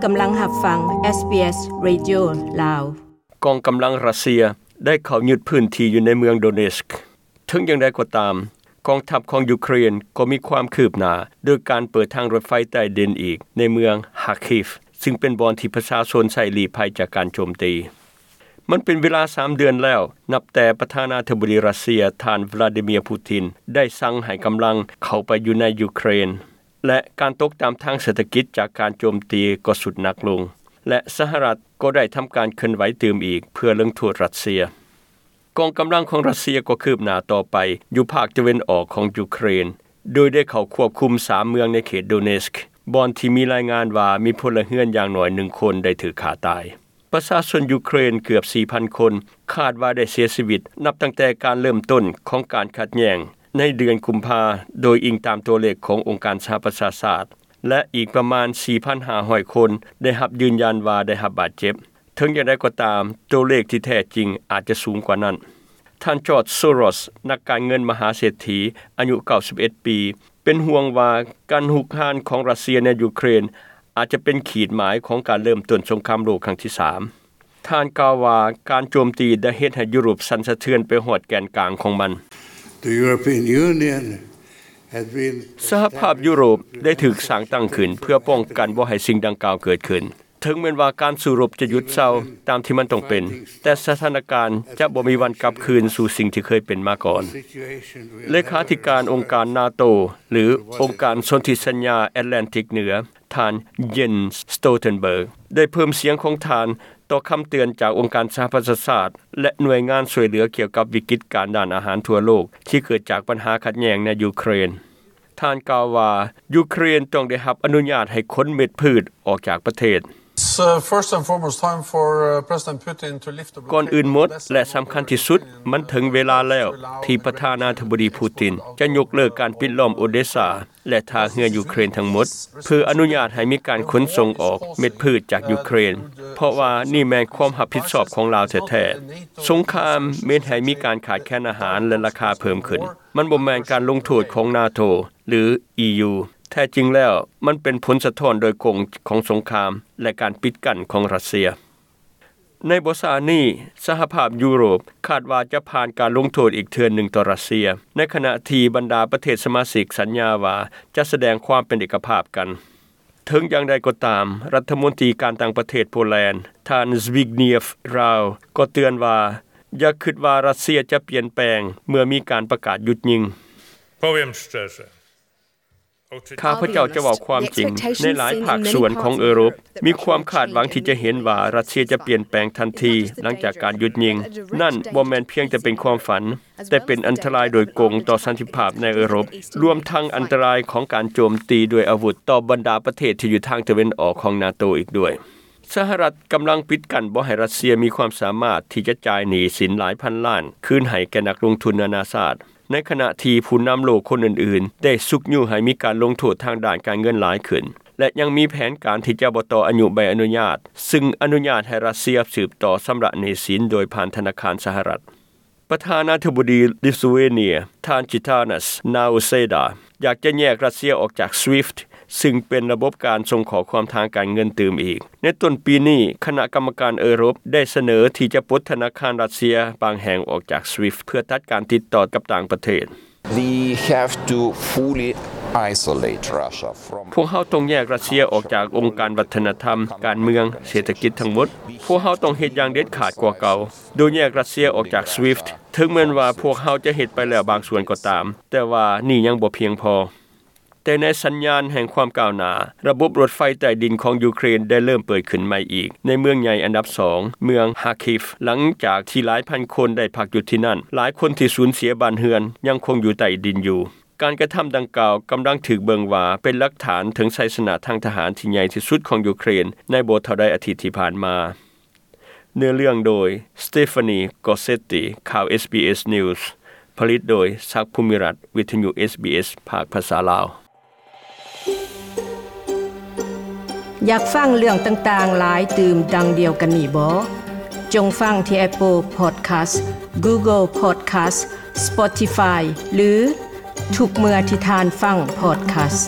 ກຳລັງຮັບຟັງ ເອສບີເອສ ເຣດິໂອ ລາວ. ກອງກຳລັງຣັດເຊຍໄດ້ເຂົ້າຍຶດພື້ນທີ່ຢູ່ໃນເມືອງໂດເນສ. ເຖິງຢ່າງໃດກໍຕາມ, ກອງທັບຂອງຢູເຄຣນກໍມີຄວາມຄືບໜ້າ ໂດຍການເປີດທາງລົດໄຟໃຕ້ດິນອີກໃນເມືອງຮາຄີຟ ຊຶ່ງເປັນບ່ອນທີ່ປະຊາຊົນໃຊ້ລີ້ໄພຈາກການໂຈມຕີ. ມັນເປັນເວລາສາມເດືອນແລ້ວ ນັບແຕ່ປະທານາທິບໍດີຣັດເຊຍ ທ່ານ ວລາດີເມຍ ປູຕິນ ໄດ້ສັ່ງໃຫ້ກຳລັງເຂົ້າໄປຢູ່ໃນຢູເຄຣນ ແລະ ການຕົກຕ່ຳທາງເສດຖະກິດຈາກການໂຈມຕີກໍຊຸດໜັກລົງ ແລະ ສະຫະລັດກໍໄດ້ທຳການເຄື່ອນໄຫວຕື່ມອີກເພື່ອລົງໂທດຣັດເຊຍ. ກອງກຳລັງຂອງຣັດເຊຍກໍຄືບໜ້າຕໍ່ໄປຢູ່ພາກຕາເວັນອອກຂອງຢູເຄຣນ, ໂດຍໄດ້ເຂົ້າຄວບຄຸມສາມເມືອງໃນເຂດໂດເນສ ບ່ອນທີ່ມີລາຍງານວ່າມີພົນລະເຮືອນຢ່າງໜ້ອຍໜຶ່ງຄົນໄດ້ຖືກຂ້າຕາຍ. ປະຊາຊົນຢູເຄຣນເກືອບສີ່ພັນຄົນ ຄາດວ່າໄດ້ເສຍຊີວິດນັບຕັ້ງແຕ່ການເລີ່ມຕົ້ນຂອງການຂັດແຍ່ງໃນເດືອນກຸມພາ, ໂດຍອີງຕາມຕົວເລກຂອງອົງການສະຫະປະຊາຊາດ, ແລະ ອີກປະມານສີ່ພັນຫ້າຮ້ອຍຄົນໄດ້ຮັບຢືນຢັນວ່າໄດ້ຮັບບາດເຈັບ. ເຖິງຢ່າງໃດກໍຕາມ, ຕົວເລກທີ່ແທ້ຈິງອາດຈະສູງກວ່ານັ້ນ. ທ່ານ ຈອດ ໂຊຣອສ ນັກການເງິນມະຫາເສດຖີອາຍຸເກົ້າສິບເອັດປີ ເປັນຫ່ວງວ່າການຮຸກຮານຂອງຣັດເຊຍໃນຢູເຄຣນອາດຈະເປັນຂີດໝາຍຂອງການເລີ່ມຕົ້ນສົງຄາມໂລກຄັ້ງທີສາມ. ທ່ານກ່າວວ່າ ການໂຈມຕີໄດ້ເຮັດໃຫ້ຢູໂຣບສັ່ນສະເທືອນໄປຮອດແກນກາງຂອງມັນ. The European Union has been ສະຫະພາບຢູໂຣບໄດ້ຖືກສ້າງຕັ້ງຂຶ້ນເພື່ອປ້ອງກັນບໍ່ໃຫ້ສິ່ງດັ່ງກ່າວເກີດຂຶ້ນ. ເຖິງແມ່ນວ່າການສູ້ລົບຈະຢຸດເຊົາຕາມທີ່ມັນຕ້ອງເປັນ, ແຕ່ສະຖານະການຈະບໍ່ມີວັນກັບຄືນສູ່ສິ່ງທີ່ເຄີຍເປັນມາກ່ອນ. ເລຂາທິການອົງການນາໂຕ ຫຼື ອົງການສົນທິສັນຍາແອດແລນຕິກເໜືອ, ທ່ານ ເຢນ ສະໂຕເຕັນເບີກ ໄດ້ເພີ່ມສຽງຂອງທ່ານຕໍ່ຄຳເຕືອນຈາກອົງການສະຫະປະຊາຊາດ ແລະ ໜ່ວຍງານຊ່ວຍເຫຼືອກ່ຽວກັບວິກິດການດ້ານອາຫານທົ່ວໂລກທີ່ເກີດຈາກບັນຫາຂັດແຍ່ງໃນຢູເຄຣນ. ທ່ານກ່າວວ່າ ຢູເຄຣນຕ້ອງໄດ້ຮັບອະນຸຍາດໃຫ້ຂົນເມັດພືດອອກຈາກປະເທດ. It's, uh, first and foremost time for, uh, President Putin to lift the blockade. ກ່ອນອື່ນໝົດ ແລະ ສຳຄັນທີ່ສຸດ, ມັນເຖິງເວລາແລ້ວທີ່ປະທານາທິບໍດີ ປູຕິນ ຈະຍົກເລີກການປິດລ້ອມໂອເດຊາ ແລະ ທ່າເຮືອຢູເຄຣນທັງໝົດ ເພື່ອອະນຸຍາດໃຫ້ມີການຂົນສົ່ງອອກເມັດພືດຈາກຢູເຄຣນ, ເພາະວ່ານີ້ແມ່ນຄວາມຮັບຜິດຊອບຂອງລາວແທ້ໆ. ສົງຄາມເຮັດໃຫ້ມີການຂາດແຄນອາຫານ ແລະ ລາຄາເພີ່ມຂຶ້ນ. ມັນບໍ່ແມ່ນການລົງໂທດຂອງນາໂຕ ຫຼື ອີຢູ. ແທ້ຈິງແລ້ວ, ມັນເປັນຜົນສະທ້ອນໂດຍກົງຂອງສົງຄາມ ແລະ ການປິດກັ້ນຂອງຣັດເຊຍ. ໃນບໍ່ຊ້ານີ້, ສະຫະພາບຢູໂຣບຄາດວ່າຈະຜ່ານການລົງໂທດອີກເທື່ອໜຶ່ງຕໍ່ຣັດເຊຍ, ໃນຂະນະທີ່ບັນດາປະເທດສະມາຊິກສັນຍາວ່າຈະສະແດງຄວາມເປັນເອກະພາບກັນ. ເຖິງຢ່າງໃດກໍຕາມ, ລັດຖະມົນຕີການຕ່າງປະເທດໂປແລນ, ທ່ານ ສະວິກເນຍຟ ຣາວ ກໍເຕືອນວ່າ ຢ່າຄິດວ່າຣັດເຊຍຈະປ່ຽນແປງເມື່ອມີການປະກາດຢຸດຍິງ. Powiem szczerze. ຂ້າພະເຈົ້າຈະເວົ້າຄວາມຈິງ, ໃນຫຼາຍພາກສ່ວນຂອງເອີຣົບ ມີຄວາມຄາດຫວັງທີ່ຈະເຫັນວ່າຣັດເຊຍຈະປ່ຽນແປງທັນທີຫຼັງຈາກການຢຸດຍິງ. ນັ້ນບໍ່ແມ່ນພຽງແຕ່ເປັນຄວາມຝັນ, ແຕ່ເປັນອັນຕະລາຍໂດຍກົງຕໍ່ສັນຕິພາບໃນເອີຣົບ, ລວມທັງອັນຕະລາຍຂອງການໂຈມຕີດ້ວຍອາວຸດຕໍ່ບັນດາປະເທດທີ່ຢູ່ທາງຕາເວັນອອກຂອງນາໂຕອີກດ້ວຍ. ສະຫະລັດກຳລັງປິດກັ້ນບໍ່ໃຫ້ຣັດເຊຍມີຄວາມສາມາດທີ່ຈະຈ່າຍໜີ້ສິນຫຼາຍພັນລ້ານຄືນໃຫ້ແກ່ນັກລົງທຶນນານາຊາດ, ໃນຂະນະທີ່ຜູ້ນຳໂລກຄົນອື່ນໆໄດ້ຊຸກຍູ້ໃຫ້ມີການລົງໂທດທາງດ້ານການເງິນຫຼາຍຂຶ້ນ ແລະ ຍັງມີແຜນການທີ່ຈະບໍ່ຕໍ່ອາຍຸໃບອະນຸຍາດ, ຊຶ່ງອະນຸຍາດໃຫ້ຣັດເຊຍສືບຕໍ່ຊຳລະໜີ້ສິນໂດຍຜ່ານທະນາຄານສະຫະລັດ. ປະທານາທິບໍດີລິດເທຣວເນຍ ທ່ານ ຈິຕານັສ ນາວເຊດາ ຢາກຈະແຍກຣັດເຊຍອອກຈາກ SWIFT ຊຶ່ງເປັນລະບົບການສົ່ງຂໍ້ຄວາມທາງການເງິນຕື່ມອີກ. ໃນຕົ້ນປີນີ້, ຄະນະກຳມະການເອີຣົບໄດ້ສະເໜີທີ່ຈະປົດທະນາຄານຣັດເຊຍບາງແຫ່ງອອກຈາກ SWIFT ເພື່ອຕັດການຕິດຕໍ່ກັບຕ່າງປະເທດ. We have to fully isolate Russia from ພວກເຮົາຕ້ອງແຍກຣັດເຊຍອອກຈາກອົງການວັດທະນະທຳ, ການເມືອງ, ເສດຖະກິດທັງໝົດ. ພວກເຮົາຕ້ອງເຮັດຢ່າງເດັດຂາດກວ່າເກົ່າ, ໂດຍແຍກຣັດເຊຍອອກຈາກ SWIFT. ເຖິງແມ່ນວ່າພວກເຮົາຈະເຮັດໄປແລ້ວບາງສ່ວນກໍຕາມ, ແຕ່ວ່ານີ້ຍັງບໍ່ພຽງພໍ. ແຕ່ໃນສັນຍານແຫ່ງຄວາມກ້າວໜ້າ, ລະບົບລົດໄຟໃຕ້ດິນຂອງຢູເຄຣນໄດ້ເລີ່ມເປີດຂຶ້ນໃໝ່ອີກໃນເມືອງໃຫຍ່ອັນດັບສອງ, ເມືອງຮາຄີຟ, ຫຼັງຈາກທີ່ຫຼາຍພັນຄົນໄດ້ພັກຢູ່ທີ່ນັ້ນ. ຫຼາຍຄົນທີ່ສູນເສຍບ້ານເຮືອນຍັງຄົງຢູ່ໃຕ້ດິນຢູ່. ການກະທຳດັ່ງກ່າວກຳລັງຖືກເບິ່ງວ່າເປັນຫຼັກຖານເຖິງໄຊຊະນະທາງທະຫານທີ່ໃຫຍ່ທີ່ສຸດຂອງຢູເຄຣນໃນບໍ່ເທົ່າໃດອາທິດທີ່ຜ່ານມາ. ເນື້ອເລື່ອງໂດຍ ສະເຕຟານີ ກອເຊັດຕີ. ຂ່າວ ເອສບີເອສ News ຜະລິດໂດຍ ສັກ ພູມິລັດ, ວິທະຍຸ ເອສບີເອສ ພາກພາສາລາວ. ຢາກຟັງເລື່ອງຕ່າງໆຫຼາຍຕື່ມດັ່ງດຽວກັນນີ້ບໍ? ຈົ່ງຟັງທີ່ Apple Podcast, Google Podcast, Spotify ຫຼື ທຸກເມື່ອທີ່ທ່ານຟັງ Podcast.